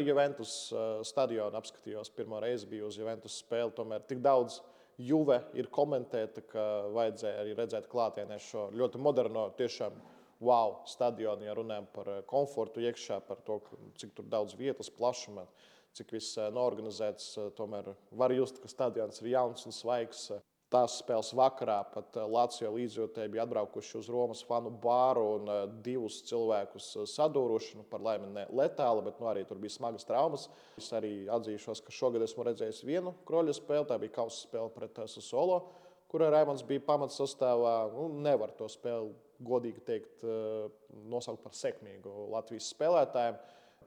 arī Juventus stadionu apskatījos. Pirmo reizi biju uz Juventus spēli. Tomēr tik daudz Juve ir komentēta, ka vajadzēja arī redzēt klātienē šo ļoti moderno, tiešām wow stadionu, ja runājam par komfortu iekšā, par to, cik tur daudz vietas, plašuma, cik viss norganizēts. Tomēr var just, ka stadions ir jauns un svaigs. Tās spēles vakarā pat Lazio līdzjūtēji bija atbraukuši uz Romas fanu bāru un divus cilvēkus sadūruši. Par laimi ne letāli, bet arī tur bija smagas traumas. Es arī atzīšos, ka šogad esmu redzējis vienu kroļa spēli. Tā bija kausa spēle pret Sassuolo, kurā Raimonds bija pamatsastāvā. Nevar to spēli, godīgi teikt, nosaukt par sekmīgu Latvijas spēlētājiem.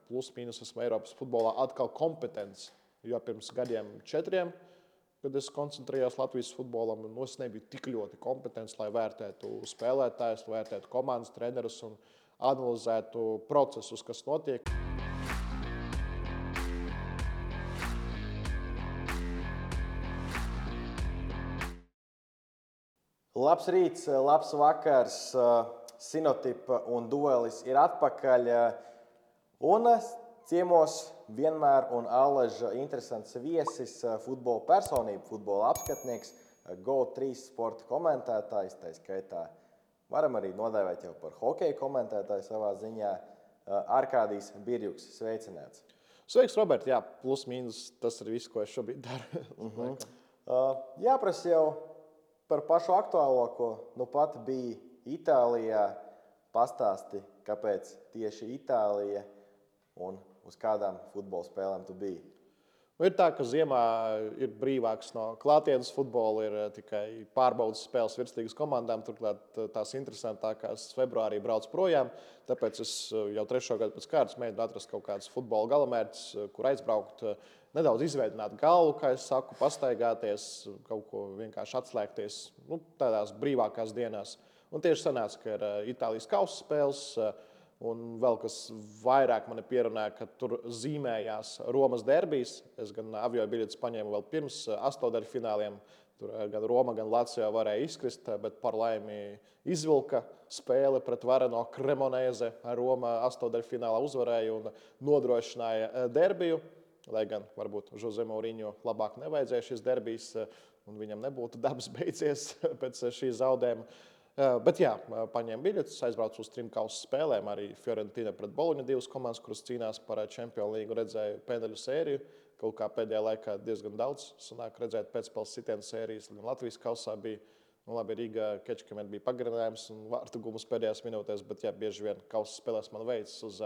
Plus mīnus esmu Eiropas futbolā atkal kompetents, jo pirms gadiem 4, kad es koncentrējos Latvijas futbolam, es nebiju tik ļoti kompetents, lai vērtētu spēlētājus, vērtētu komandas trenerus un analizētu procesus, kas notiek. Labs rīts, labs vakars, Sinotipa un Duelis ir atpakaļ. Un ciemos vienmēr un allaža interesants viesis, futbola personība, futbola apskatnieks, GO3 sporta komentētājs, tā skaitā varam arī nodēvēt jau par hokeja komentētāju savā ziņā, Arkādijs Birjuks. Sveicināts. Sveiks, Robert. Jā, plus mīnus tas ir viss, ko es šobrīd daru. Jāprasa jau par pašu aktuālāko. Nu pat bija Itālijā. Pastāsti, kāpēc tieši Itālija un uz kādām futbola spēlēm tu biji? Ir tā, ka ziemā ir brīvāks no klātienes futbola, ir tikai pārbaudas spēles virsligas komandām. Turklāt tās interesantākās februārī brauc projām. Tāpēc es jau 3. gadu pēc kārtas mēģinu atrast kaut kādas futbola galamērķis, kur aizbraukt, nedaudz izveidināt galvu, kā es saku, pastaigāties, kaut ko vienkārši atslēgties tādās brīvākās dienās. Un tieši sanāca, ka ir Itālijas kausa spēles. Un vēl kas vairāk mani pierunāja, ka tur zīmējās Romas derbijas. Es gan avio biļetes paņēmu vēl pirms astotdaļfināliem. Tur gan Roma, gan Lazio varēja izkrist, bet par laimi izvilka spēli pret Vareno Cremonese. Roma astotdaļfinālā uzvarēja un nodrošināja derbiju. Lai gan varbūt Jose Mourinho labāk nevajadzēja šīs derbijas un viņam nebūtu dabas beidzies pēc šī zaudējuma. Bet jā, paņēmu biļetes, aizbraucu uz 3 kausa spēlēm. Arī Fiorentina pret Boloņu 2 komandas, kuras cīnās par Champions League, redzēju pēdēļu sēriju. Kaut kā pēdējā laikā diezgan daudz sanāk redzēt pēcspēles sitienu sērijas. Latvijas kausā bija, labi, Rīgā Kečkamēt bija pagarinājums un vārtu gumus pēdējās minūtēs, bet jā, bieži vien kausa spēlēs man veicas uz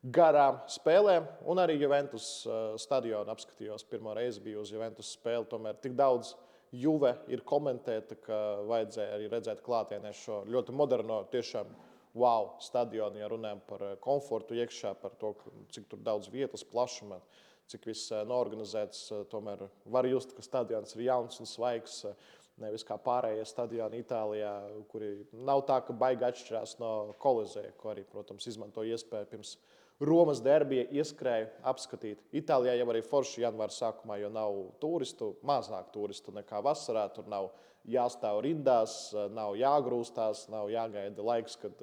garām spēlēm. Un arī Juventus stadionu apskatījos. Pirmo reizi biju uz Juventus spēli, tomēr tik daudz Juve ir komentēta, ka vajadzēja arī redzēt klātienē šo ļoti moderno, tiešām wow stadionu, ja runājam par komfortu iekšā, par to, cik tur daudz vietas, plašuma, cik viss norganizēts. Tomēr var just, ka stadions ir jauns un svaigs, nevis kā pārējie stadioni Itālijā, kuri nav tā, ka baigi atšķirās no Kolizea, ko arī, protams, izmanto iespēju pirms Romas derbija ieskrēju apskatīt. Itālijā jau arī forši janvāra sākumā, jo nav turistu, mazāk turistu nekā vasarā. Tur nav jāstāv rindās, nav jāgrūstās, nav jāgaida laiks, kad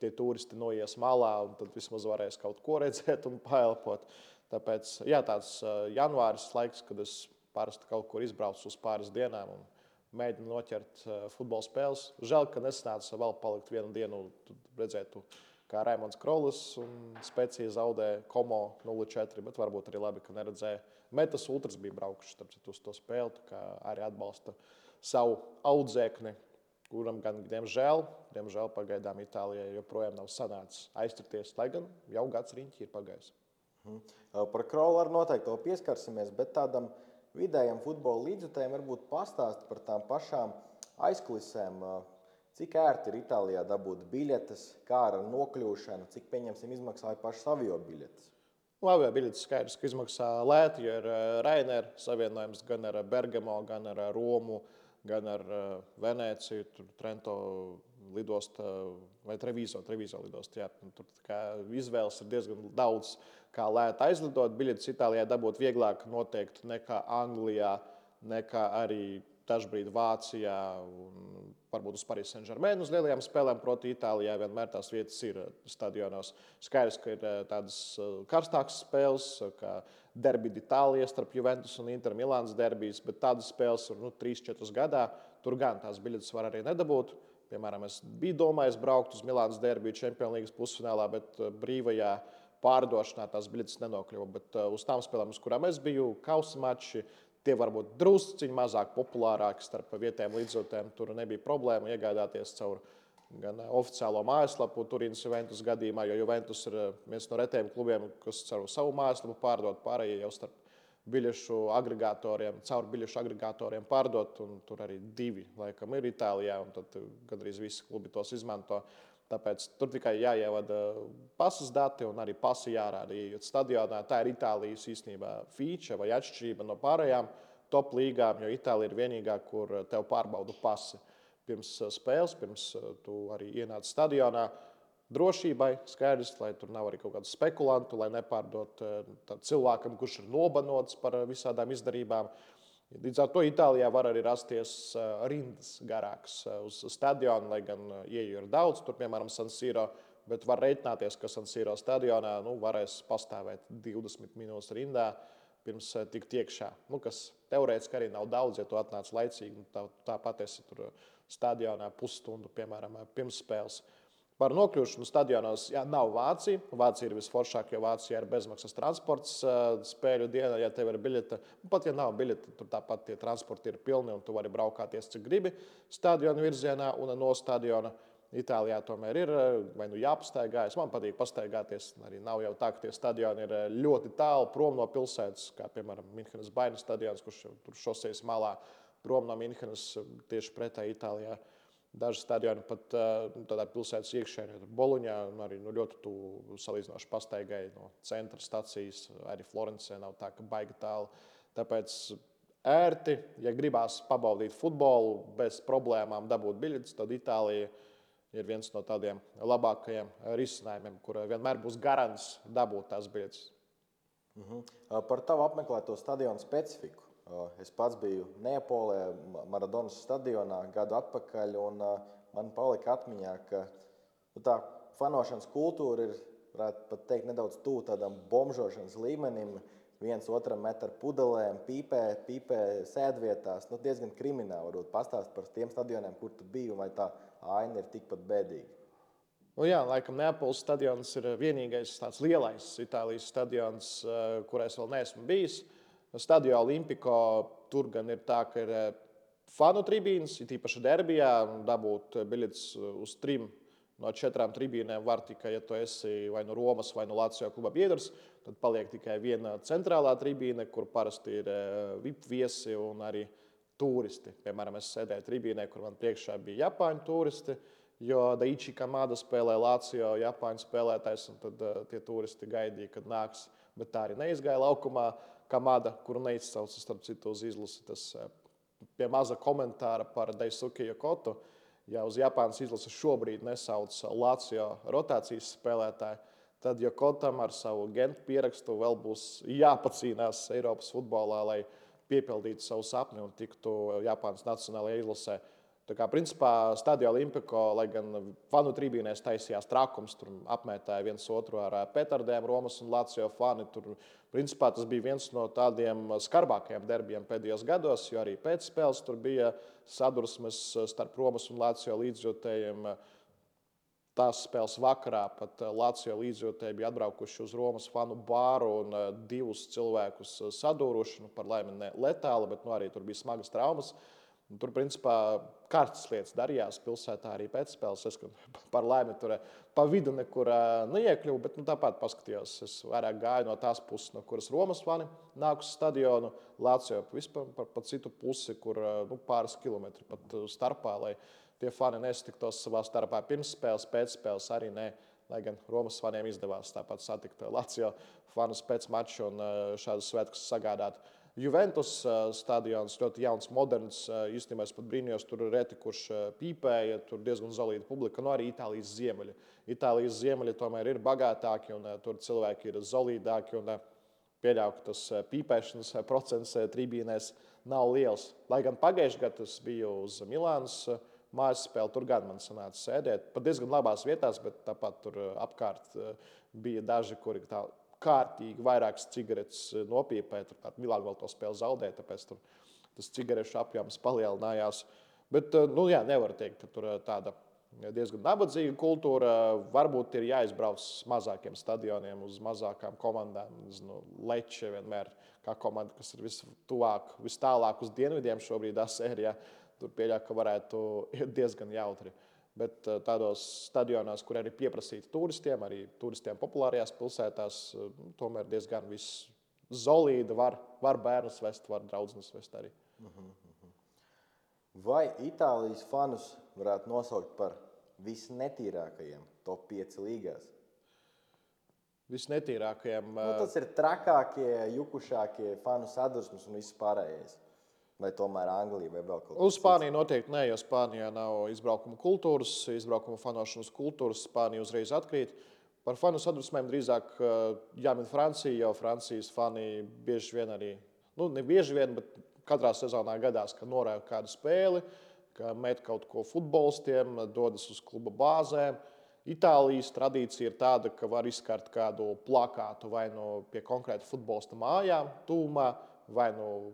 tie turisti noies malā un tad vismaz varēs kaut ko redzēt un paelpot. Tāpēc jā, tāds janvāris laiks, kad es parasti kaut kur izbraucu uz pāris dienām un mēģinu noķert futbola spēles. Žēl, ka nesanāca vēl palikt vienu dienu, redzētu, kā Raimonds Krolis un Specija zaudē Como 0-4, bet varbūt arī labi, ka neredzēja. Metas Ultras bija braukuši uz to spēli, kā arī atbalsta savu audzēkni, kuram gan, diemžēl pagaidām Itālijai joprojām nav sanācis aizturties, lai gan jau gads riņķi ir pagājis. Par Krolu arī noteikti vēl pieskarsimies, bet tādam vidējam futbola līdzjutējiem varbūt pastāst par tām pašām aizkulisēm. Cik ērti ir Itālijā dabūt biļetes, kā ar nokļūšanu, cik pieņemsim izmaksāja pašas avio biļetes? Avio biļetes skaidrs, ka izmaksā lēti, jo ir Ryanair savienojums gan ar Bergamo, gan ar Romu, gan ar Venēciju, Trento lidosta vai Treviso lidosta. Jā, tur izvēles ir diezgan daudz, kā lēti aizlidot. Biļetes Itālijā dabūt vieglāk noteikti nekā Anglijā, nekā arī dažbrīd Vācijā un varbūt uz Paris Saint-Germain uz lielajām spēlēm proti Itālijā. Vienmēr tās vietas ir stadionos. Skaidrs, ka ir tādas karstākas spēles, kā derbi d'Itālija starp Juventus un Inter Milānas derbijas, bet tādas spēles ir 3-4 gadā. Tur gan tās biļetes var arī nedabūt. Piemēram, es biju domājis braukt uz Milānas derbiju Čempionu līgas pusfinālā, bet brīvajā pārdošanā tās biļetes nenokļuva. Bet uz tām spēlēm, uz kurām es biju, kausa mači, tie var būt drusciņi mazāk populārāki starp vietējiem līdzjūtējiem. Tur nebija problēma iegādāties caur gan oficiālo mājaslapu Turīnas Juventus gadījumā, jo Juventus ir viens no retiem klubiem, kas caur savu mājaslapu pārdod, pārējie jau starp biļešu agregatoriem, caur biļešu agregatoriem pārdot, un tur arī 2 laikam ir Itālijā, un tad gandrīz visi klubi tos izmanto. Tāpēc tur tikai jāievada pasas dati un arī pasi jārāda. Iejot stadionā, tā ir Itālijas īstenībā feature vai atšķirība no pārējām top līgām, jo Itālija ir vienīgā, kur tev pārbauda pasi pirms spēles, pirms tu arī ienāc stadionā. Drošībai skaidrs, lai tur nav arī kaut kādu spekulantu, lai nepārdot cilvēkam, kurš ir nobanots par visādām izdarībām. Līdz ar to Itālijā var arī rasties rindas garākas uz stadionu, lai gan ieeju ir daudz, tur piemēram San Siro, bet var reiķināties, ka San Siro stadionā varēs pastāvēt 20 minūtes rindā pirms tikt iekšā. Kas teorētiski arī nav daudz, ja tu atnāc laicīgi, tāpat esi tur stadionā pusstundu, piemēram, pirms spēles. Par nokļūšanu stadionos nav Vācija. Vācija ir visforšākā, jo Vācijā ir bezmaksas transports spēļu dienā, ja tev ir biļete. Pat ja nav biļete, tur tāpat tie transporti ir pilni un tu vari braukāties, cik gribi stadiona virzienā un no stadiona. Itālijā tomēr ir vai jāpastaigājas. Man patīk pastaigāties. Arī nav jau tā, ka tie stadioni ir ļoti tālu prom no pilsētas, kā piemēram Minhenes Baina stadions, kurš tur šosejas malā prom no Minhenes tieši pretēji Itālijā. Daži stadioni pat tādā pilsētas iekšēnē, Boloņā, arī ļoti tuvu salīdzinoši pastaigai no centra stacijas. Arī Florencē nav tā, ka baigi tālu. Tāpēc ērti, ja gribās pabaudīt futbolu bez problēmām dabūt biļetes, tad Itālija ir viens no tādiem labākajiem risinājumiem, kur vienmēr būs garants dabūt tās biļetes. Par tavu apmeklēto stadionu specifiku. Es pats biju Neapolē, Maradonas stadionā gadu atpakaļ, un man palika atmiņā, ka tā fanošanas kultūra ir, varētu pat teikt, nedaudz tuvu tādam bombžošanas līmenim. Viens otram met ar pudelēm, pīpē sēdvietās. Diezgan krimināli varbūt pastāst par tiem stadioniem, kur tu biji, vai tā aina ir tikpat bēdīga. Jā, laikam Neapoles stadions ir vienīgais tāds lielais Itālijas stadions, kurā es vēl neesmu bijis. Stadio Olimpico tur gan ir tā, ka ir fanu tribīnes, it īpaši derbijā, dabūt biļetes uz 3 no 4 tribīnēm var tikai, ja tu esi vai no Romas vai no Lazio kluba biedrs, tad paliek tikai viena centrālā tribīne, kur parasti ir VIP viesi un arī turisti. Piemēram, es sēdēju tribīnē, kur man priekšā bija Japāņu turisti, jo Daichi Kamada spēlē Lazio Japāņu spēlētājs, un tad tie turisti gaidīja, kad nāks, bet tā arī neizgāja laukumā. Kamada, kuru neizcauca starp citu uz izlasi, tas pie maza komentāra par Daisuke Yokotu. Ja uz Japānas izlasi šobrīd nesauc Lazio rotācijas spēlētāju, tad Yokotam ar savu Gentu pierakstu vēl būs jāpacīnās Eiropas futbolā, lai piepildītu savu sapni un tiktu Japānas nacionālajā izlasē. Tā kā, principā, Stadio Olimpico, lai gan fanu tribīnēs taisījās trakums, tur apmētāja viens otru ar petardēm, Romas un Lazio fani. Tur, principā, tas bija viens no tādiem skarbākajiem derbijiem pēdējos gados, jo arī pēc spēles tur bija sadursmes starp Romas un Lazio līdzjūtējiem. Tās spēles vakarā pat Lazio līdzjūtēji bija atbraukuši uz Romas fanu bāru un 2 cilvēkus sadūruši, par laimi ne letāli, bet arī tur bija smagas traumas. Tur, principā, karstas lietas darījās pilsētā arī pēc spēles. Es par laimi tur pa vidu nekur neiekļuvu, bet tāpat paskatījos. Es vairāk gāju no tās puses, no kuras Romas fani nāk uz stadionu, Lazio vispār pa citu pusi, kur pāris kilometri pat starpā, lai tie fani nesatiktos savā starpā pirms spēles, pēc spēles arī ne. Lai gan Romas faniem izdevās tāpat satikt Lazio fanus pēc mača un šādas svētkus sagādāt. Juventus stadions ļoti jauns, moderns. Īstenībā es pat brīnījos, tur reti kurš pīpēja, tur diezgan solīda publika, arī Itālijas ziemeļi. Itālijas ziemeļi tomēr ir bagātāki un tur cilvēki ir solīdāki. pieļauju, ka tas pīpēšanas procents tribīnēs nav liels. Lai gan pagājušajā gadā es biju uz Milānas mājas spēli, tur gan man sanāca sēdēt pat diezgan labās vietās, bet tāpat tur apkārt bija daži, kuri tā kārtīgi vairākas cigaretes nopīpēja. Turklāt Milāna vēl to spēli zaudēja, tāpēc tur tas cigarešu apjoms palielinājās. Bet nevar teikt, ka tur tāda diezgan nabadzīga kultūra. Varbūt ir jāizbrauc uz mazākiem stadioniem, uz mazākām komandām. Leče vienmēr kā komanda, kas ir vistuvāk, vistālāk uz dienvidiem šobrīd sērijā. Tur pieļauju, ka varētu iet diezgan jautri. Bet tādos stadionos, kur arī pieprasīti turistiem, arī turistiem populārajās pilsētās, tomēr diezgan viss zolīda. Var bērnus vest, var draudzenes vest arī. Vai Itālijas fanus varētu nosaukt par visnetīrākajiem top 5 līgās? Visnetīrākajiem. Tas ir trakākie, jukušākie fanu sadursmes un viss pārējais. Vai tomēr Anglija vai vēl kaut kas Uz Spāniju noteikti nē, jo Spānijā nav izbraukuma kultūras, izbraukuma fanošanas kultūras. Spānija uzreiz atkrīt. Par fanu sadusmēm drīzāk jāmin Francija, jo Francijas fani bieži vien arī, ne bieži vien, bet katrā sezonā gadās, ka norāda kādu spēli, ka met kaut ko futbolistiem, dodas uz kluba bāzēm. Itālijas tradīcija ir tāda, ka var izkart kādu plakātu vai pie konkrēta futbolista mājām, tūmā, vai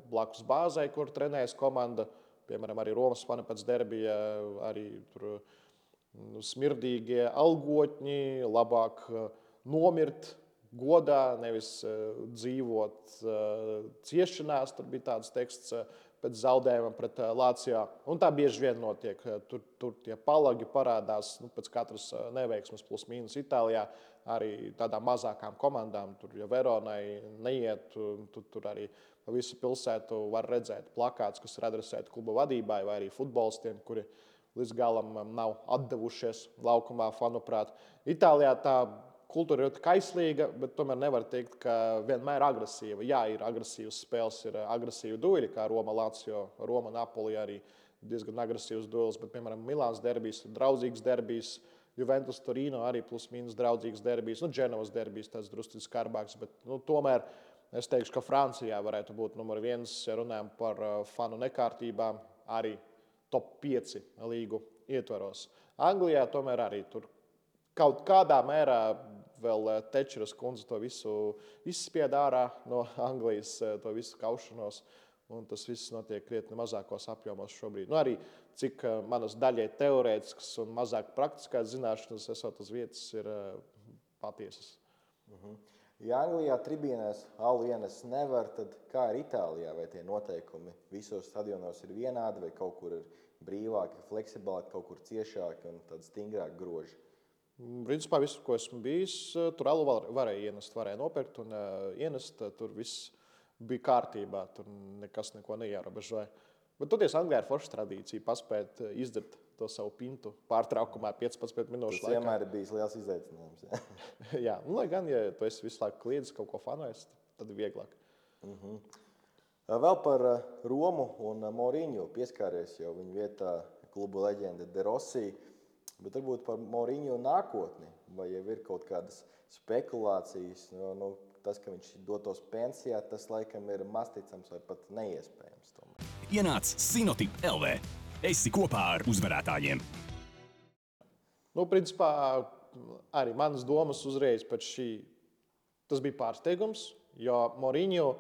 blakus bāzē, kur trenējas komanda. Piemēram, arī Romas fani pēc derbija, arī tur smirdīgie algotņi, labāk nomirt godā, nevis dzīvot ciešanās. Tur bija tāds teksts pēc zaudējuma pret Lācijā. Un tā bieži vien notiek. Tur tie palagi parādās pēc katras neveiksmes plus mīnus Itālijā. Arī tādām mazākām komandām, tur, ja Veronai neiet, tur arī pa visu pilsētu var redzēt plakāts, kas ir adresēti kluba vadībai vai arī futbolistiem, kuri līdz galam nav atdevušies laukumā, fanuprāt. Itālijā tā kultūra ir kaislīga, bet tomēr nevar teikt, ka vienmēr agresīva. Jā, ir agresīvas spēles, ir agresīvi dueli, kā Roma, Lazio, Roma, Napoli arī diezgan agresīvs duels, bet, piemēram, Milāns derbijs ir draudzīgs derbijs, Juventus Torino arī plus mīnus draudzīgs derbijs, Dženovas derbijs tāds drusku skarbāks, bet tomēr es teikšu, ka Francijā varētu būt numur 1, ja runājam par fanu nekārtībām, arī top 5 līgu ietvaros. Anglijā tomēr arī tur kaut kādā mērā vēl Tečeras kundze to visu izspied ārā no Anglijas, to visu kaušanos, un tas viss notiek krietni mazākos apjomos šobrīd. Arī cik manas daļai teorētiskas un mazāk praktiskās zināšanas esot uz vietas ir patiesas. Ja Anglijā tribīnēs alu ienes nevar, tad kā ir Itālijā? Vai tie noteikumi visos stadionos ir vienādi, vai kaut kur ir brīvāki, fleksiblāki, kaut kur ciešāki un tādi stingrāki groži? Principā visu, ko esmu bijis, tur alu varēja ienest, varēja nopirkt un ienest. Tur viss bija kārtībā, tur nekas neko neierobežoja. Bet toties Anglijā ir forša tradīcija paspēt izdzert to savu pintu pārtraukumā 15 minūšu laikā. Tas vienmēr ir bijis liels izaicinājums. Jā, lai gan, ja tu esi visu laiku kliedzis kaut ko fanojis, tad ir vieglāk. Vēl par Romu un Mourinho pieskāries jau viņa vietā klubu leģenda De Rossi. Bet varbūt par Mourinho nākotni, vai jau ir kaut kādas spekulācijas, tas, ka viņš dotos pensijā, tas laikam ir masticams vai pat neiespējams. Ienāc Sinotip LV. Esi kopā ar uzvarētājiem. Principā arī manas domas uzreiz pēc šī, tas bija pārsteigums, jo Mourinho,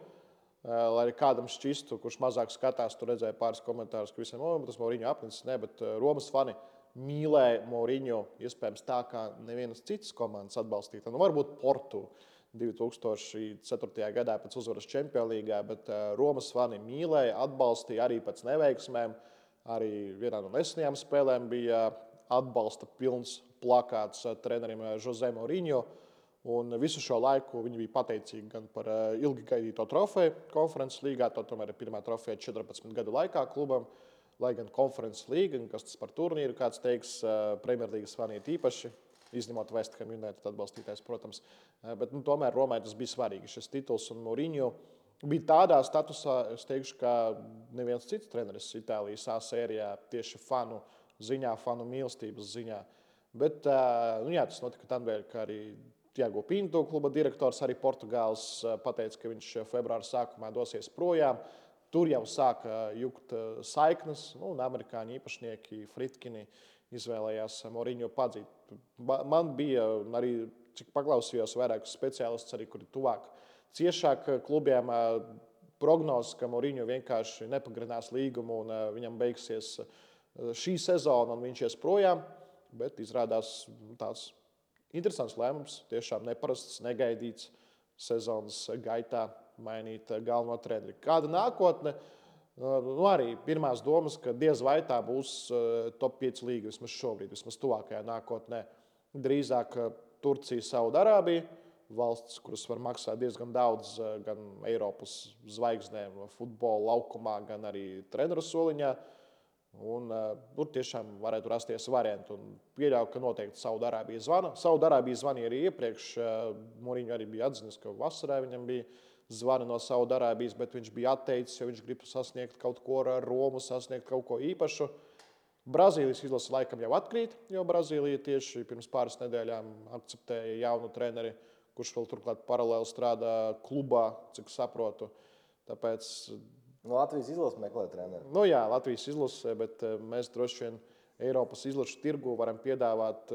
lai kādam šķistu, kurš mazāk skatās, tur redzēja pāris komentārus, ka visiem, tas Mourinho apnicis, ne, bet Romas fani mīlēja Mourinho, iespējams tā, kā nevienas citas komandas atbalstīta. Varbūt Portu 2004. gadā pēc uzvaras Čempionu līgā, bet Romas fani mīlēja, atbalstīja arī pēc neveiksmēm. Arī vienā no nesenajām spēlēm bija atbalsta pilns plakāts trenerim Jose Mourinho. Un visu šo laiku viņi bija pateicīgi gan par ilgi gaidīto trofeju konferences līgā, to tomēr ir pirmā trofeja 14 gadu laikā klubam. Lai gan konferences līga, kas tas par turnīru, kāds teiks, Premjerlīgas fani īpaši, izņemot West Ham United atbalstītājs, protams. Bet tomēr Romai tas bija svarīgi, šis tituls, un Mourinho bija tādā statusā, es teikšu, ka neviens cits treneris Itālijas A sērijā tieši fanu ziņā, fanu mīlestības ziņā. Bet tas notika tādēļ, ka arī Tiago Pinto, kluba direktors, arī Portugāls, pateica, ka viņš februāra sākumā dosies projām. Tur jau sāka jukt saiknes, un amerikāņu īpašnieki Fritkini izvēlējās Mourinho padzīt. Man bija arī, cik paklausījos, vairākus speciālistus, arī, kuri tuvāk ciešāk klubiem, prognozes, ka Mourinho vienkārši nepagarinās līgumu un viņam beigsies šī sezona un viņš ies projām, bet izrādās tāds interesants lēmums, tiešām neparasts, negaidīts sezonas gaitā mainīt galveno treneri. Kāda nākotne? Arī pirmās domas, ka diez vai tā būs top 5 līga vismaz šobrīd, vismaz tuvākajā nākotnē. Drīzāk Turcija, Saudarābija, valsts, kuras var maksāt diezgan daudz gan Eiropas zvaigznēm futbola laukumā, gan arī treneru soliņā. Un, tur tiešām varētu rasties varianti. Pieļauju, ka noteikti Saudarābija zvana. Saudarābija zvanīja arī iepriekš. Mourinho arī bija atzinis, ka vasarā viņam bija zvani no Saudarābijas, bet viņš bija atteicis, jo viņš grib sasniegt kaut ko ar Romu, sasniegt kaut ko īpašu. Brazīlijas izlase laikam jau atkrīt, jo Brazīlija tieši pirms pāris nedēļām akceptēja jaunu treneri, kurš vēl turklāt paralēli strādā klubā, cik saprotu. Tāpēc Latvijas izlase meklē treneri. Jā, Latvijas izlase, bet mēs droši vien Eiropas izlašu tirgu varam piedāvāt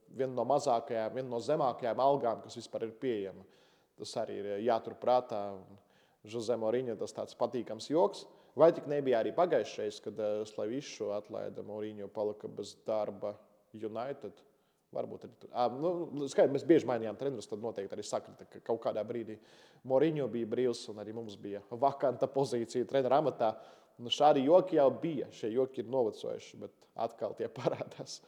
vienu no mazākajām, vienu no zemākajām algām, kas vispār ir pieejama. Tas arī ir jāturprātā. Jose Mourinho tas tāds patīkams joks. Vai tik nebija arī pagājušais, kad Slavišu atlaida Mourinho palika bez darba United? Varbūt arī tur. Skaidrs, mēs bieži mainījām trenerus, tad noteikti arī sakrita, ka kaut kādā brīdī Mourinho bija brīvs un arī mums bija vakanta pozīcija trenera amatā. Šādi joki jau bija. Šie joki ir novecojuši, bet atkal tie parādās.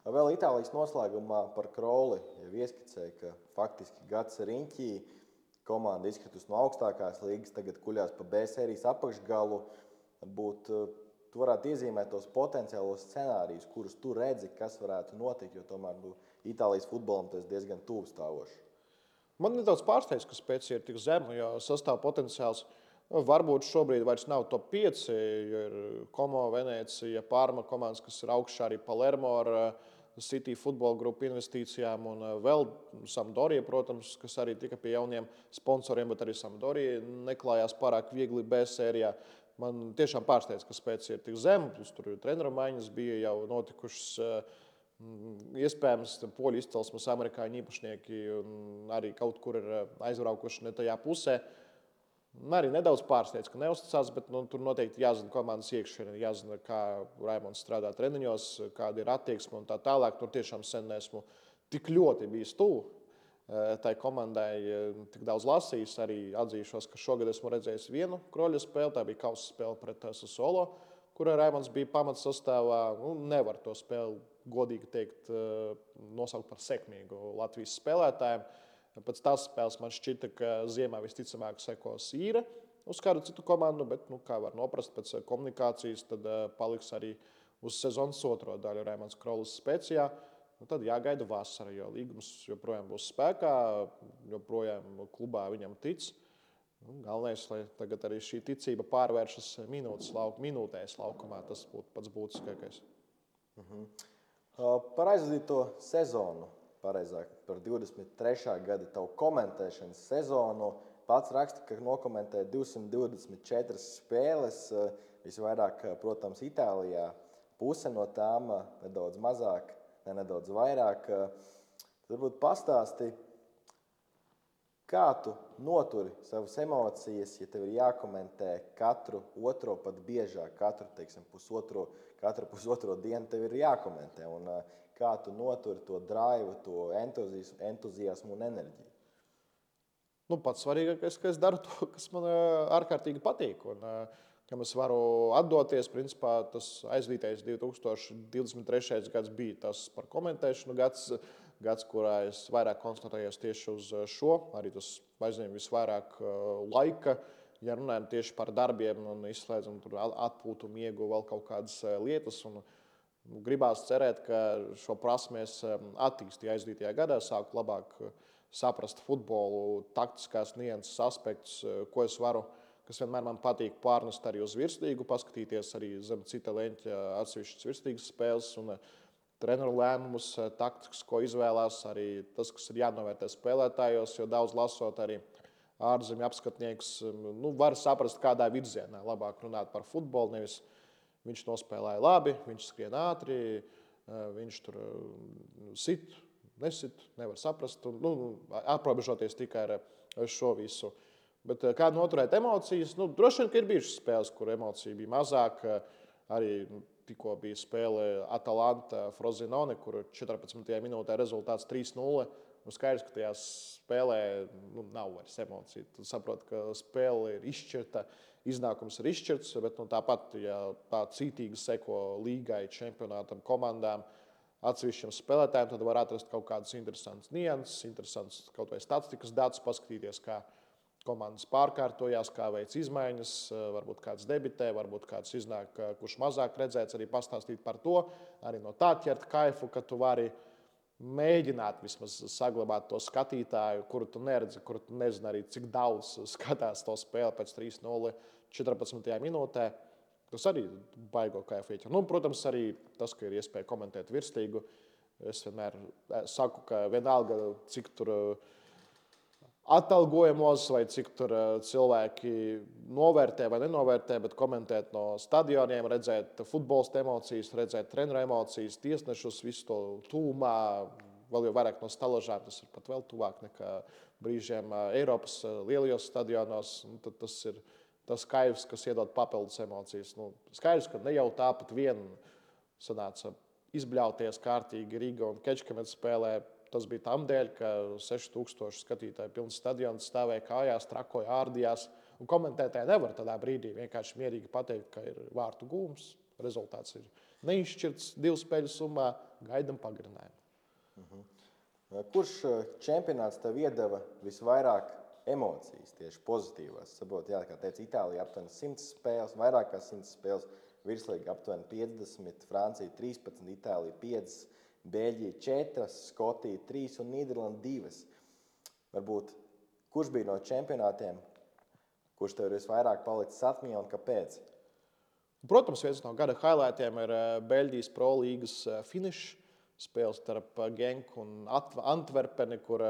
Vēl Itālijas noslēgumā par Kroli jau ieskicēja, ka faktiski gads riņķī komanda izkritus no augstākās līgas, tagad kuļās pa B sērijas apakšgalu. Tu varētu iezīmēt tos potenciālos scenārijus, kurus tu redzi, kas varētu notikt, jo tomēr Itālijas futbolam tas diezgan tuvu stāvoši. Man nedaudz pārsteidz, ka Spezia ir tik zema, jo sastāv potenciāls varbūt šobrīd vairs nav top 5, jo ir Como, Venecija, Parma komandas, kas ir augšā, arī Palermo ar City futbola grupu investīcijām un vēl Sampdoria, protams, kas arī tika pie jauniem sponsoriem, bet arī Sampdoria neklājās pārāk viegli B sērijā. Man tiešām pārsteidz, ka Spezia ir tik zema, plus tur treneru maiņas bija jau notikušas. Iespējams, poļu izcelsmes amerikāņu īpašnieki arī kaut kur ir aizbraukuši ne tajā pusē. Arī nedaudz pārsteidz, ka neuzticās, bet tur noteikti jāzina komandas iekšienē, jāzina, kā Raimonds strādā treniņos, kāda ir attieksme un tā tālāk. Tur tiešām sen neesmu tik ļoti bijis tuvu tai komandai, tik daudz lasījis. Arī atzīšos, ka šogad esmu redzējis vienu Kroļa spēli, tā bija kausa spēle pret Sassuolo, kurā Raimonds bija pamatsastāvā. Nevar to spēli, godīgi teikt, nosaukt par sekmīgu Latvijas spēlētājiem. Pēc tās spēles man šķita, ka ziemā visticamāk sekos īre uz kādu citu komandu, bet, kā var noprast pēc komunikācijas, tad paliks arī uz sezonas otro daļu Raimonds Krolis Specijā. Tad jāgaida vasara, jo līgums joprojām būs spēkā, joprojām klubā viņam tic. Galvenais, lai tagad arī šī ticība pārvēršas minūtēs laukumā, tas būtu pats būtiskākais. Par aizvadīto sezonu, pareizāk par 23. gada tavu komentēšanas sezonu, pats raksta, ka nokomentēja 224 spēles, visvairāk, protams, Itālijā. Puse no tām nedaudz mazāk, nedaudz vairāk. Varbūt pastāsti, kā tu noturi savas emocijas, ja tev ir jākomentē katru otro, pat biežāk, katru pusotro dienu tev ir jākomentē. Un kā tu noturi to draivu, to entuziasmu un enerģiju? Pats svarīgākais, ka es daru to, kas man ārkārtīgi patīk. Un, kam es varu atdoties, principā tas aizvītais 2023. gads bija tas par komentēšanu gads, kurā es vairāk koncentrējos tieši uz šo. Arī tas aizņem visvairāk laika, ja runājam tieši par darbiem un izslēdzam tur atpūtu, miegu, vēl kaut kādas lietas. Un gribās cerēt, ka šo prasmēs attīstīju aizdītajā gadā, sāku labāk saprast futbolu, taktiskās nianses aspektus, ko es varu, kas vienmēr man patīk pārnest arī uz virslīgu, paskatīties arī zem cita leņķa atsevišķas virslīgas spēles. Un treneru lēmumus, taktikas, ko izvēlās, arī tas, kas ir jānovērtē spēlētājos, jo daudz lasot arī ārzemju apskatniekus, var saprast, kādā virzienā labāk runāt par futbolu. Nevis viņš nospēlēja labi, viņš skrien ātri, viņš tur sit, nesit, nevar saprast, aprobežoties tikai ar šo visu. Bet kā noturēt emocijas? Droši vien, ka ir bijušas spēles, kur emociju bija mazāk. Arī tikko bija spēle Atalanta Frosinone, kur 14. minūtē rezultāts 3-0. Skaidrs, ka tajā spēlē nav vairs emociju. Tu saproti, ka spēle ir izšķirta, iznākums ir izšķirts, bet tāpat, ja tā cītīgi seko līgai, čempionātam, komandām, atsevišķiem spēlētājiem, tad var atrast kaut kādas interesantas nianses, interesantas kaut vai statistikas datus, paskatīties, kā komandas pārkārtojās, kā veic izmaiņas, varbūt kāds debitē, varbūt kāds iznāk, kurš mazāk redzēts, arī pastāstīt par to, arī no tā ķert kaifu, ka tu vari mēģināt vismaz saglabāt to skatītāju, kuru tu neredzi, kuru tu nezini arī, cik daudz skatās to spēli pēc 3-0 14. minūtē. Tas arī baigo kaifu ieķer. Protams, arī tas, ka ir iespēja komentēt virslīgu. Es vienmēr saku, ka vienalga, cik tur atalgojamos vai cik tur cilvēki novērtē vai nenovērtē, bet komentēt no stadioniem, redzēt futbolista emocijas, redzēt treneru emocijas, tiesnešus, visu to tūmā, vēl jau vairāk no stalažām, tas ir pat vēl tuvāk nekā brīžiem Eiropas lielajos stadionos. Tad tas ir tas kaivs, kas iedod papildus emocijas. Skaidrs, ka ne jau tāpat vien sanāca izbļauties kārtīgi Riga un Kečkamets spēlē. Tas bija tam dēļ, ka 6000 skatītāju pilns stadions stāvēja kājās, trakoja, ārdījās. Un komentētāji nevar tādā brīdī vienkārši mierīgi pateikt, ka ir vārtu gūms. Rezultāts ir neizšķirts 2 spēļu summā, gaidam pagarinājumu. Kurš čempionāts tev iedeva visvairāk emocijas, tieši pozitīvās? Saprotu, kā teica, Itālija aptuveni 100 spēles, vairāk kā 100 spēles, virslīga aptuveni 50, Francija 13, Itālija 5. Beļģija 4, Skotija 3 un Nīderlanda 2. Varbūt, kurš bija no čempionātiem, kurš tev ir visvairāk palicis atmiņā un kāpēc? Protams, viens no gada highlightiem ir Beļģijas Pro līgas finišs. Spēles starp Genku un Antverpeni, kur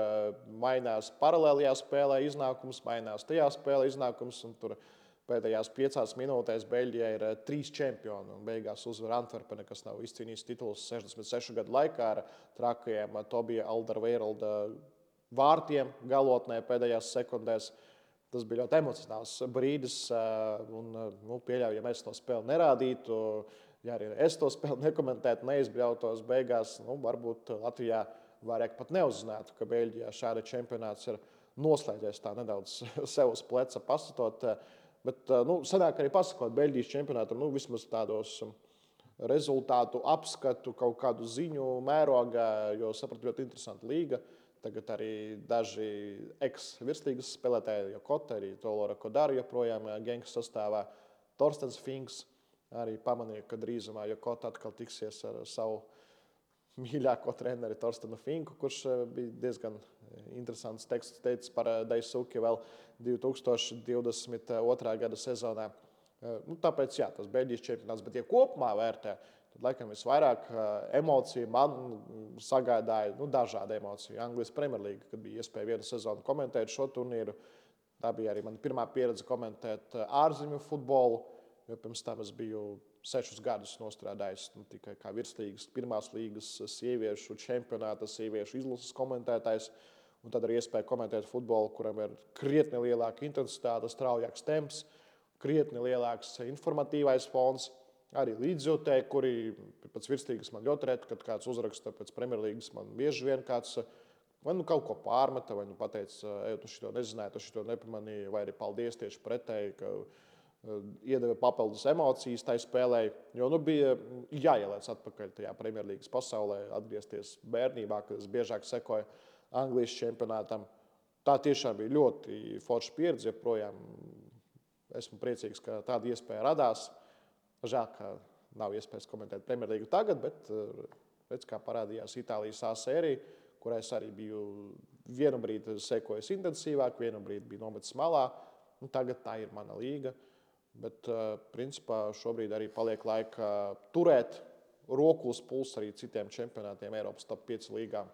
mainās paralēlajā spēlē iznākums, mainās tajā spēlē iznākums. Tur pēdējās 5 minūtēs Beļģijai ir 3 čempioni. Beigās uzvar Antverpene, kas nav izcīnījis titulus 66 gadu laikā ar trakajiem Tobija Alderweirelda vārtiem galotnē pēdējās sekundēs. Tas bija ļoti emocionāls brīdis. Pieļauju, ja mēs to spēli nerādītu, ja arī es to spēli nekomentētu, neizbļautos beigās, varbūt Latvijā vairāk pat neuzzinātu, ka Beļģijā šāda čempionāts ir noslēdzies tā nedaudz sev uz pleca pasatot. Bet sanāk arī pasakot Beļģijas čempionātam, vismaz tādos rezultātu apskatu, kaut kādu ziņu mērogā, jo sapratu ļoti interesanta līga. Tagad arī daži ex-virslīgas spēlētāji, Jokota, arī Tolora Kodara joprojām Genkas sastāvā. Torstens Finks arī pamanīja, ka drīzumā Jokota atkal tiksies ar savu mīļāko treneri Torstenu Finku, kurš bija diezgan interesants teksts teicis par Daisuki vēl 2022. Gada sezonā. Tāpēc, jā, tas Beļģijas čempionāts, bet ja kopumā vērtē, tad laikam visvairāk emociju man sagādāja, dažādi emociju. Anglijas Premjerlīga, kad bija iespēja vienu sezonu komentēt šo turnīru, tā bija arī mana pirmā pieredze komentēt ārzemju futbolu, jo pirms tam es biju 6 gadus nostrādājis tikai kā virslīgas, pirmās līgas sieviešu čempionāta, sieviešu izlases komentētājs. Un tad arī iespēja komentēt futbolu, kuram ir krietni lielāka intensitāte, straujāks temps, krietni lielāks informatīvais fons. Arī līdzjūtēji, kuri pēc virslīgas man ļoti reti, kad kāds uzraksta pēc Premjerlīgas, man bieži vien kāds vai kaut ko pārmeta, vai pateica, tu šito nezināji, tu šito nepamanīji, vai arī paldies tieši pretēji, ka iedeva papildus emocijas tai spēlē, jo bija jāielēc atpakaļ tajā Premjerlīgas pasaulē, atgriezties bērnībā, kad es biežāk sekoju Anglijas čempionātam. Tā tiešām bija ļoti forša pieredze, joprojām esmu priecīgs, ka tāda iespēja radās. Žēl, ka nav iespējas komentēt Premjerlīgu tagad, bet redz, kā parādījās Itālijas A sērija, kurai es arī biju vienu brīdi sekojis intensīvāk, vienu brīdi biju nometis malā. Tagad tā ir mana līga. Bet, principā, šobrīd arī paliek laika turēt roku uz pulsa arī citiem čempionātiem Eiropas top 5 līgām.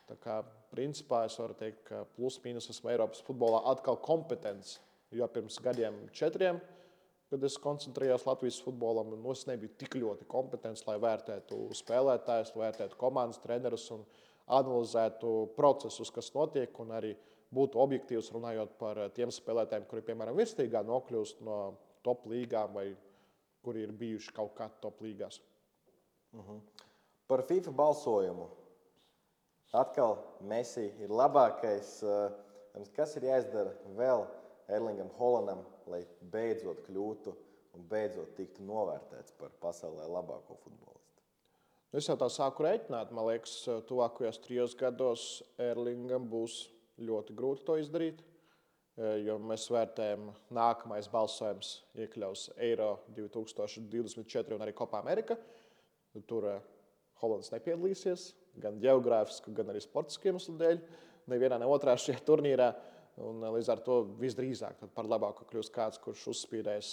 Tā kā, principā, es varu teikt, ka plus-mínus esmu Eiropas futbolā atkal kompetents, jo pirms gadiem 4, kad es koncentrējos Latvijas futbolam, es nebiju tik ļoti kompetents, lai vērtētu spēlētājus, vērtētu komandas trenerus un analizētu procesus, kas notiek, un arī būtu objektīvs runājot par tiem spēlētājiem, kuri, piemēram, virsīgā nokļūst no top līgām vai kuri ir bijuši kaut kā top līgās. Par FIFA balsojumu. Atkal Messi ir labākais. Kas ir jāizdara vēl Erlingam Haalandam, lai beidzot kļūtu un beidzot tiktu novērtēts par pasaulē labāko futbolistu? Es jau tā sāku rēķināt. Man liekas, tuvākajos 3 gados Erlingam būs ļoti grūti to izdarīt, jo mēs vērtējam, nākamais balsojums iekļaus Eiro 2024 un arī Copa America. Tur Haalands nepiedalīsies, gan geogrāfisku, gan arī sportisku iemeslu dēļ. Nevienā, ne otrā šajā turnīrā. Un, līdz ar to visdrīzāk par labāku kļūst kāds, kurš uzspīdēs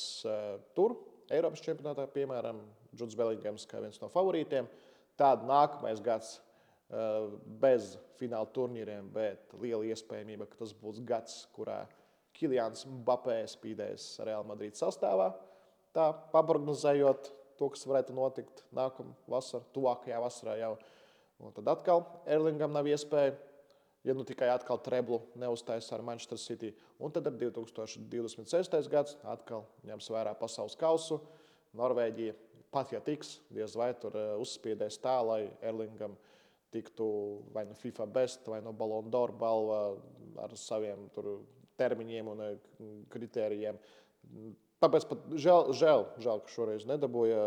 tur, Eiropas čempionātā, piemēram, Juds Belingams kā viens no favorītiem. Tāda nākamais gads bez fināla turnīriem, bet liela iespējamība, ka tas būs gads, kurā Kylians Mbappé spīdēs Real Madrid sastāvā. Tā, paprognozējot to, kas varētu notikt nākamā vasarā, tuvākajā vasarā jau. Un tad atkal Erlingam nav iespēja, ja nu tikai atkal treblu neuztaisa ar Manchester City. Un tad ar 2026. gads atkal ņems vērā pasaules kausu. Norvēģija pat, ja tiks, diez vai tur uzspiedēs tā, lai Erlingam tiktu vai no FIFA Best, vai no Ballon d'Or balva ar saviem tur termiņiem un kritērijiem. Tāpēc pat žēl, ka šoreiz nedabūja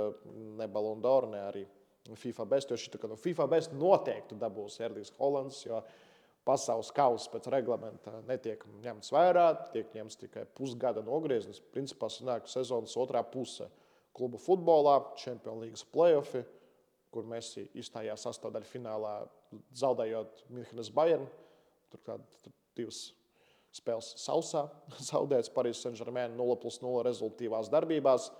ne Ballon d'Or, ne arī FIFA Best, jo šī no FIFA Best noteikti dabūs Erlings Haalands, jo pasaules kausa pēc reglamenta netiek ņemts vērā, tiek ņemts tikai pusgada nogrieznis. Principā sanāk sezonas otrā puse klubu futbolā, Champions League play-offi, kur Messi izstājās sastāvdaļfinālā, zaudējot Münchenes Bayern. Turklāt 2 spēles sausā, zaudēts Paris Saint-Germain 0+0 rezultīvās darbībās.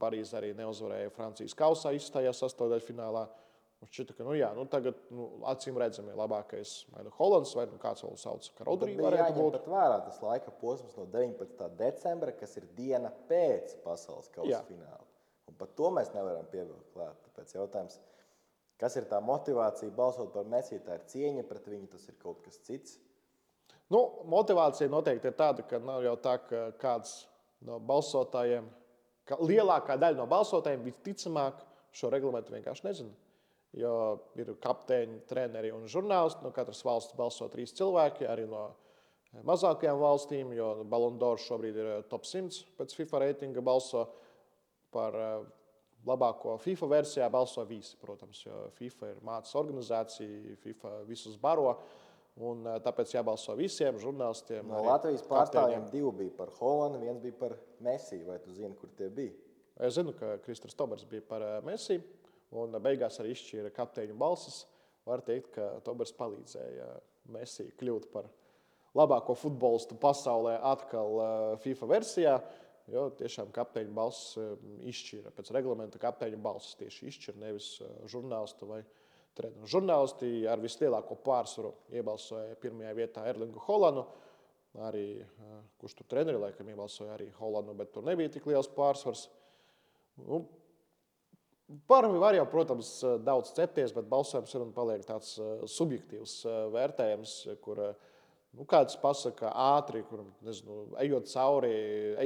Parīze arī neuzvarēja Francijas kausā, izstājās sastāvdaļfinālā. Šķita, ka tagad acīm redzami labākais vai nu Haalands, vai nu kāds vēl sauc, ka Rodri varētu būt. Pat vērā tas laika posms no 19. decembra, kas ir diena pēc pasaules kausa fināla. Un pat to mēs nevaram pievilkt klāt. Tāpēc jautājums, kas ir tā motivācija balsot par Messi? Tā ir cieņa pret viņu, tas ir kaut kas cits? Motivācija noteikti ir tāda, ka nav jau tā, ka kāds no balsotājiem, ka lielākā daļa no balsotājiem visticamāk šo reglamentu vienkārši nezina. Jo ir kapteiņi, treneri un žurnālisti. No katras valsts balso 3 cilvēki, arī no mazākajām valstīm, jo Ballon d'Or šobrīd ir top 100 pēc FIFA reitinga balso. Par labāko FIFA versijā balso visi, protams, jo FIFA ir mācas organizācija, FIFA visus baro. Un tāpēc jābalso visiem žurnālistiem. No Latvijas pārstāvjiem 2 bija par Haalandu, 1 bija par Messi. Vai tu zini, kur tie bija? Es zinu, ka Kristers Tobers bija par Messi. Un beigās arī izšķīra kapteiņu balsis. Var teikt, ka Tobers palīdzēja Messi kļūt par labāko futbolistu pasaulē atkal FIFA versijā, jo tiešām kapteiņu balsis izšķīra. Pēc reglamenta kapteiņu balsis tieši izšķīra, nevis žurnālistu vai treneru. Žurnālisti ar vislielāko pārsvaru iebalsoja pirmajā vietā Erlingu Haalandu. Arī, kurš tur treneri laikam iebalsoja arī Haalandu, bet tur nebija tik liels pārsvars. Par var jau, protams, daudz cepties, bet balsojums ir un paliek tāds subjektīvs vērtējums, kur kāds pasaka ātri, kur, nezinu, ejot cauri,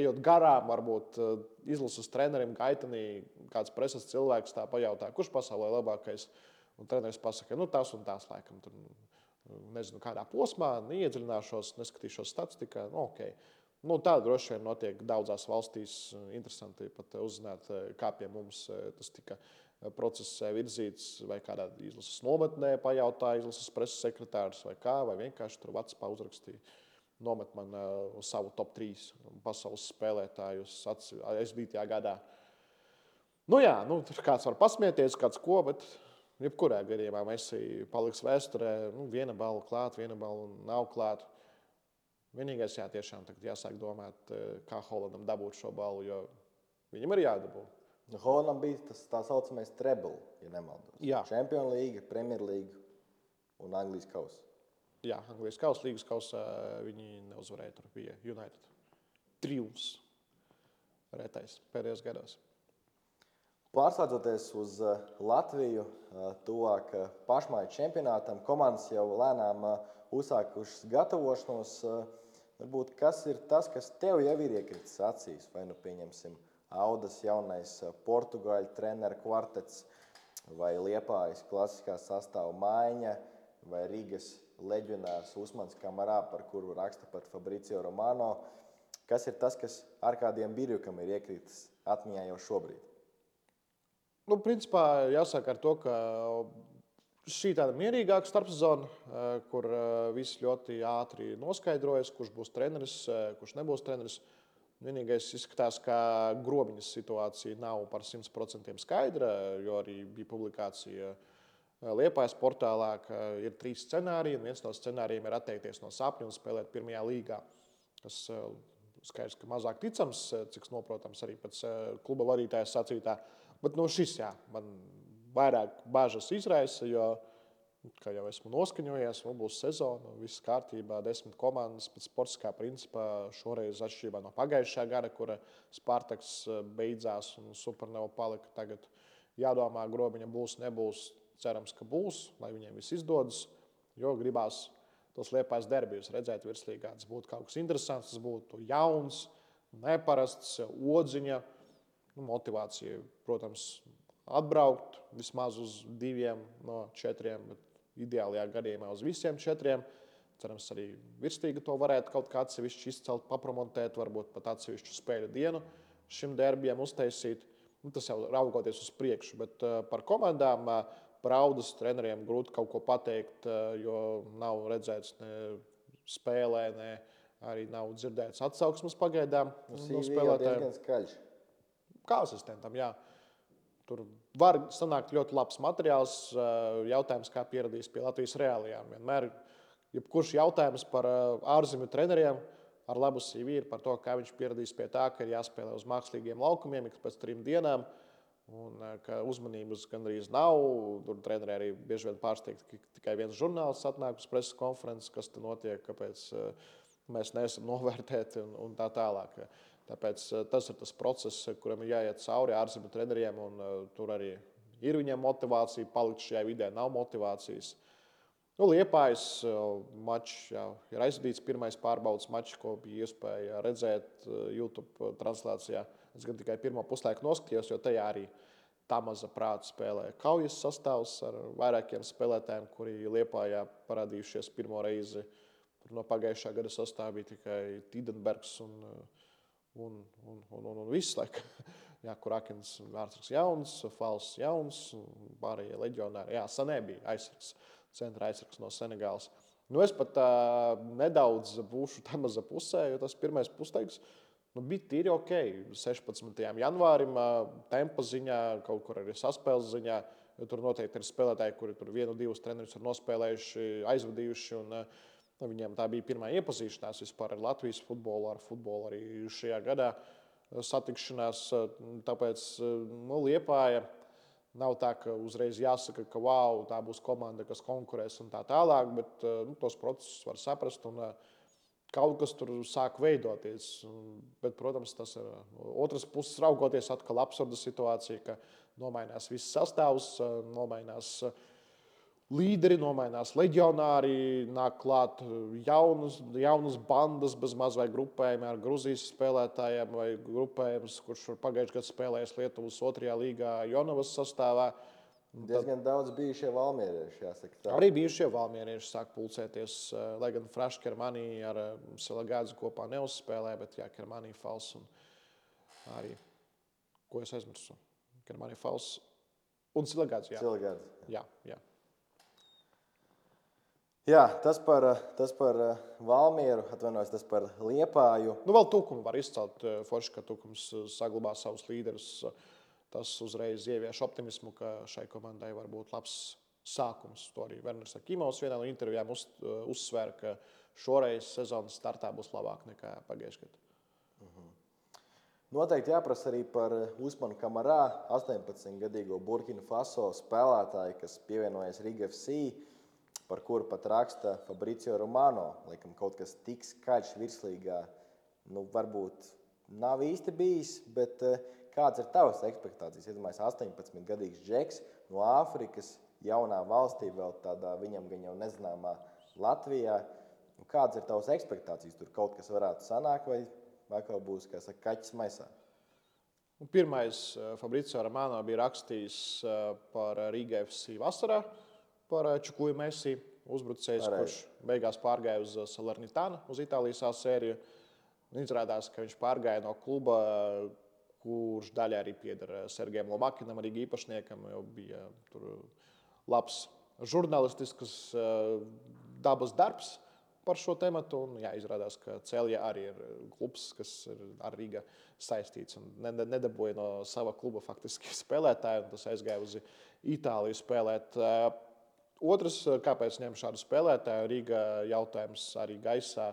ejot garām, varbūt izlases trenerim gaitenī, kāds preses cilvēks tā pajautā, kurš pasaulē labākais, un treneris pasaka, tās un tās laikam, tur, nezinu, kādā posmā, neiedziļināšos, neskatīšos statistikā, ok. Tā droši vien notiek daudzās valstīs. Interesanti pat uzzināt, kā pie mums tas tika process virzīts, vai kādā izlases nometnē pajautāja izlases preses sekretārs vai kā, vai vienkārši tur WhatsAppā uzrakstīja. Nomet man savu top 3 pasaules spēlētājus aizvītajā gadā. Tur kāds var pasmieties, kāds ko, bet jebkurā gadījumā Messi paliks vēsturē. Viena balva klāt, viena balva nav klāt. Vienīgais, tiešām tagad jāsāk domāt, kā Haalandam dabūt šo balvu, jo viņam ir jādabū. Holandam bija tas tā saucamais treble, ja nemaldos. Jā. Champions League, Premier League un Anglijas kausa. Jā, Anglijas kausa, līgas kausa viņi neuzvarēja. Tur bija United triumfs retais pēdējos gados. Pārslēdzoties uz Latviju, tuvāk pašmāju čempionātam, komandas jau lēnām uzsākušas gatavošanos. Varbūt kas ir tas, kas tev jau ir iekritis acīs? Vai nu pieņemsim Audas jaunais portugāļu treneru kvartets, vai Liepājas klasiskā sastāva maiņa, vai Rīgas leģionārs Usmans Kamarā, par kuru raksta pat Fabricio Romano. Kas ir tas, kas ar kādiem Birjukam ir iekritis atmiņā jau šobrīd? Nu, principā jāsaka ar to, ka šī tāda mierīgāka starpsezona, kur viss ļoti ātri noskaidrojas, kurš būs treneris, kurš nebūs treneris. Vienīgais izskatās, ka Grobiņas situācija nav par 100% skaidra, jo arī bija publikācija Liepājas portālā, ka ir 3 scenāriji, un viens no scenārijiem ir atteikties no sapņa un spēlēt pirmajā līgā, kas skaidrs, ka mazāk ticams, cik noprotams arī pēc kluba vadītāja sacītā. Bet šis, jā, man vairāk bažas izraisa, jo, kā jau esmu noskaņojies, būs sezona, viss kārtībā, 10 komandas pēc sportiskā principā. Šoreiz atšķirībā no pagājušā gada, kura Spartaks beidzās un Supernova palika. Tagad jādomā, Grobiņa būs, nebūs. Cerams, ka būs, lai viņiem viss izdodas, jo gribās tos Liepājas derbijus redzēt virslīgā. Tas būtu kaut kas interesants, tas būtu jauns, neparasts, odziņa, motivācija, protams, atbraukt vismaz uz 2 no 4, bet ideālajā gadījumā uz visiem 4. Cerams, arī virslīga to varētu kaut kā atsevišķi izcelt, papromontēt, varbūt pat atsevišķu spēļu dienu šim derbijam uztaisīt. Tas jau raugoties uz priekšu, bet par komandām, par Audas treneriem grūti kaut ko pateikt, jo nav redzēts ne spēlē, ne arī nav dzirdēts atsauksmes pagaidām no spēlētājiem. Diezgan skaļš. Kā asistentam, jā. Tur var sanākt ļoti labs materiāls. Jautājums, kā pieradīs pie Latvijas reālijām. Vienmēr, jebkurš jautājums par ārzemju treneriem ar labu CV ir par to, kā viņš pieradīs pie tā, ka ir jāspēlē uz mākslīgiem laukumiem ik pēc 3 dienām, un ka uzmanības gandrīz nav. Tur treneri arī bieži vien pārsteigti, ka tikai viens žurnālists atnāk uz preses konferences, kas te notiek, kāpēc mēs neesam novērtēti un tā tālāk. Tāpēc tas ir tas process, kuram ir jāiet cauri ārzemju treneriem, un tur arī ir viņiem motivācija palikt šajā vidē, nav motivācijas. Liepājas mačs ir aizvadīts, pirmais pārbaudas mačs, ko bija iespēja redzēt YouTube translācijā. Es gan tikai pirmo puslaiku noskatījos, jo tajā arī tā maza prāta spēlē kaujas sastāvs ar vairākiem spēlētājiem, kuri Liepājā parādījušies pirmo reizi. No pagājušā gada sastāvā bija tikai Tidenbergs un viss, kur Akins vārdsargs jauns, Fals jauns, pārējie leģionāri. Jā, Sanē bija aizsargs, centra aizsargs no Senegālas. Es pat nedaudz būšu tā maza pusē, jo tas pirmais puslaiks bija tīri ok. 16. janvārim tempa ziņā, kaut kur arī saspēles ziņā, jo tur noteikti ir spēlētāji, kuri tur 1-2 trenerus ir nospēlējuši, aizvadījuši, un viņiem tā bija pirmā iepazīšanās vispār ar Latvijas futbolu, ar futbolu arī šajā gadā satikšanās. Tāpēc Liepāja nav tā, ka uzreiz jāsaka, ka wow, tā būs komanda, kas konkurēs un tā tālāk, bet tos procesus var saprast un kaut kas tur sāk veidoties. Bet, protams, tas ir otras puses raugoties atkal absurda situācija, ka nomainās viss sastāvs, nomainās līderi, nomainās leģionāri, nāk klāt jaunas bandas bez maz vai grupējumi ar Gruzijas spēlētājiem vai grupējums, kurš pagājušajā gadā spēlējis Lietuvas 2. līgā Jonavas sastāvā. Diezgan daudz bijušie valmierieši, jāsaka tā. Arī bijušie valmierieši sāk pulcēties, lai gan Frašs Kermanī ar Silagādzi kopā neuzspēlē, bet jā, Kermanī Fals un arī, ko es aizmirsu, Kermanī Fals un Silagādzi, jā. Silagādzi. Jā. Jā, tas par Valmieru, atvainojos, tas par Liepāju. Vēl Tukumu var izcelt forši, ka Tukums saglabā savus līderus. Tas uzreiz ievieš optimismu, ka šai komandai var būt labs sākums. To arī Werners Akimovs vienā no intervijām uzsvēra, ka šoreiz sezonas startā būs labāk nekā pagājušajā gadā. Noteikti jāprasa arī par Usmanu Kamarā, 18-gadīgo Burkina Faso spēlētāju, kas pievienojas Riga FC, par kuru pat raksta Fabrizio Romano. Laikam kaut kas tik skaļš virslīgā, varbūt nav īsti bijis, bet kāds ir tavas expektācijas? Iedomājies, 18-gadīgs džeks no Āfrikas, jaunā valstī, vēl tādā viņam gan jau nezināmā Latvijā. Kādas ir tavas expektācijas? Tur kaut kas varētu sanākt vai atkal būs, kā saka, kaķis maisā? Pirmais Fabrizio Romano bija rakstījis par Riga FC vasarā, par Čukuju Messi, uzbrucējs, kurš beigās pārgāja uz Salernitanu, uz Itālijas A sēriju. Izrādās, ka viņš pārgāja no kluba, kurš daļai arī pieder Sergejam Lomakinam, arī īpašniekam, jo bija tur labs žurnālistisks dabas darbs par šo tematu. Un, izrādās, ka Celja arī ir klubs, kas ir ar Riga saistīts un nedabūja no sava kluba faktiski spēlētāju, un tas aizgāja uz Itāliju spēlēt. Otrs, kāpēc ņem šādu spēlētāju, Riga jautājums arī gaisā.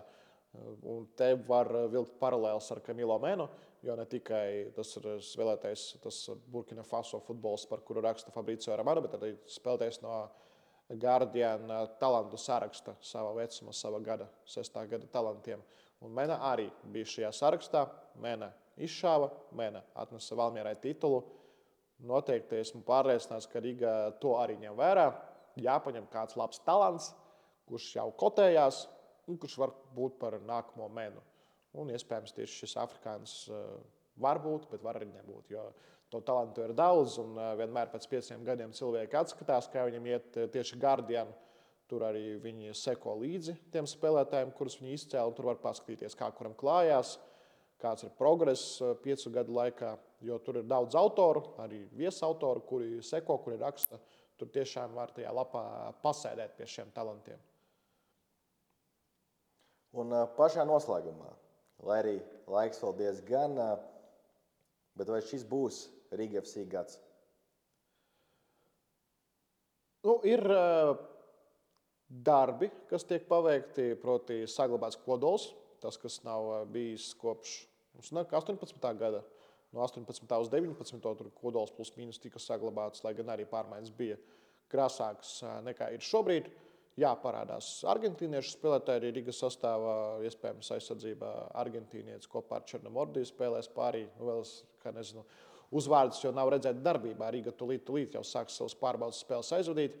Un te var vilkt paralēls ar Camilo Menu, jo ne tikai tas ir spēlētājs, tas Burkina Faso futbols, par kuru raksta Fabrizio Romano, bet arī spēlētājs no Guardian talantu saraksta sava vecuma, sava gada, 6. gada talantiem. Un Mena arī bija šajā sarakstā. Mena izšāva, Mena atnesa Valmierai titulu. Noteikti esmu pārliecināts, ka Riga to arī ņem vērā. Jāpaņem kāds labs talants, kurš jau kotējās, un kurš var būt par nākamo Menu. Un iespējams tieši šis afrikānis var būt, bet var arī nebūt, jo to talantu ir daudz, un vienmēr pēc 5 gadiem cilvēki atskatās, kā viņam iet tieši Guardian. Tur arī viņi seko līdzi tiem spēlētājiem, kurus viņi izcēla, un tur var paskatīties, kā kuram klājās, kāds ir progress 5 gadu laikā, jo tur ir daudz autoru, arī viesautoru, kuri seko, kuri raksta. Tur tiešām var tajā lapā pasēdēt pie šiem talantiem. Un pašā noslēgumā, lai arī laiks vēl diezgan, bet vai šis būs Riga FC gads? Ir darbi, kas tiek paveikti, proti saglabāts kodols, tas, kas nav bijis kopš 18. gada. No 18. uz 19. tur kodols plus mīnus tika saglabāts, lai gan arī pārmaiņas bija krāsākas nekā ir šobrīd. Jā, parādās argentīniešu spēlētāji arī Rigas sastāvā, iespējams aizsardzībā argentīnietis kopā ar Černomordiju spēlēs pārī. Vēl, kā nezinu, uzvārdus jau nav redzēt darbībā. Riga tūlīt jau sāks savus pārbaudas spēles aizvadīt.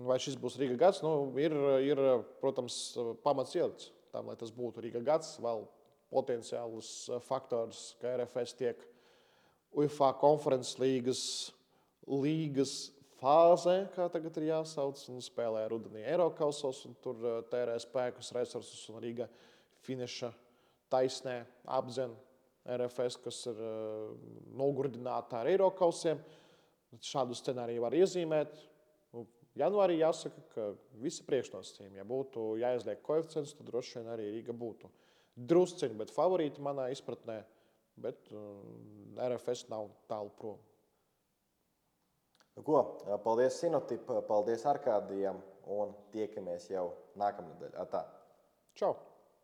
Vai šis būs Riga gads? Ir, protams, pamats ielikts tam, lai tas būtu Riga gads. Vēl potenciālus faktors, ka RFS tiek UEFA konferences līgas fāzē, kā tagad ir jāsauc, un spēlē rudenī Eirokausos, un tur tērē spēkus, resursus, un Riga finiša taisnē apdzen RFS, kas ir nogurdināta ar Eirokausiem. Šādu scenāriju var iezīmēt. Janvārī jāsaka, ka visi priekšnosacījumi, ja būtu jāizliek koeficients, tad droši vien arī Riga būtu drusciņi, bet favorīti manā izpratnē, bet RFS nav tālu prom. Paldies Sinotip, paldies Arkādijam un tiekamies jau nākamnedēļ. Atā. Čau!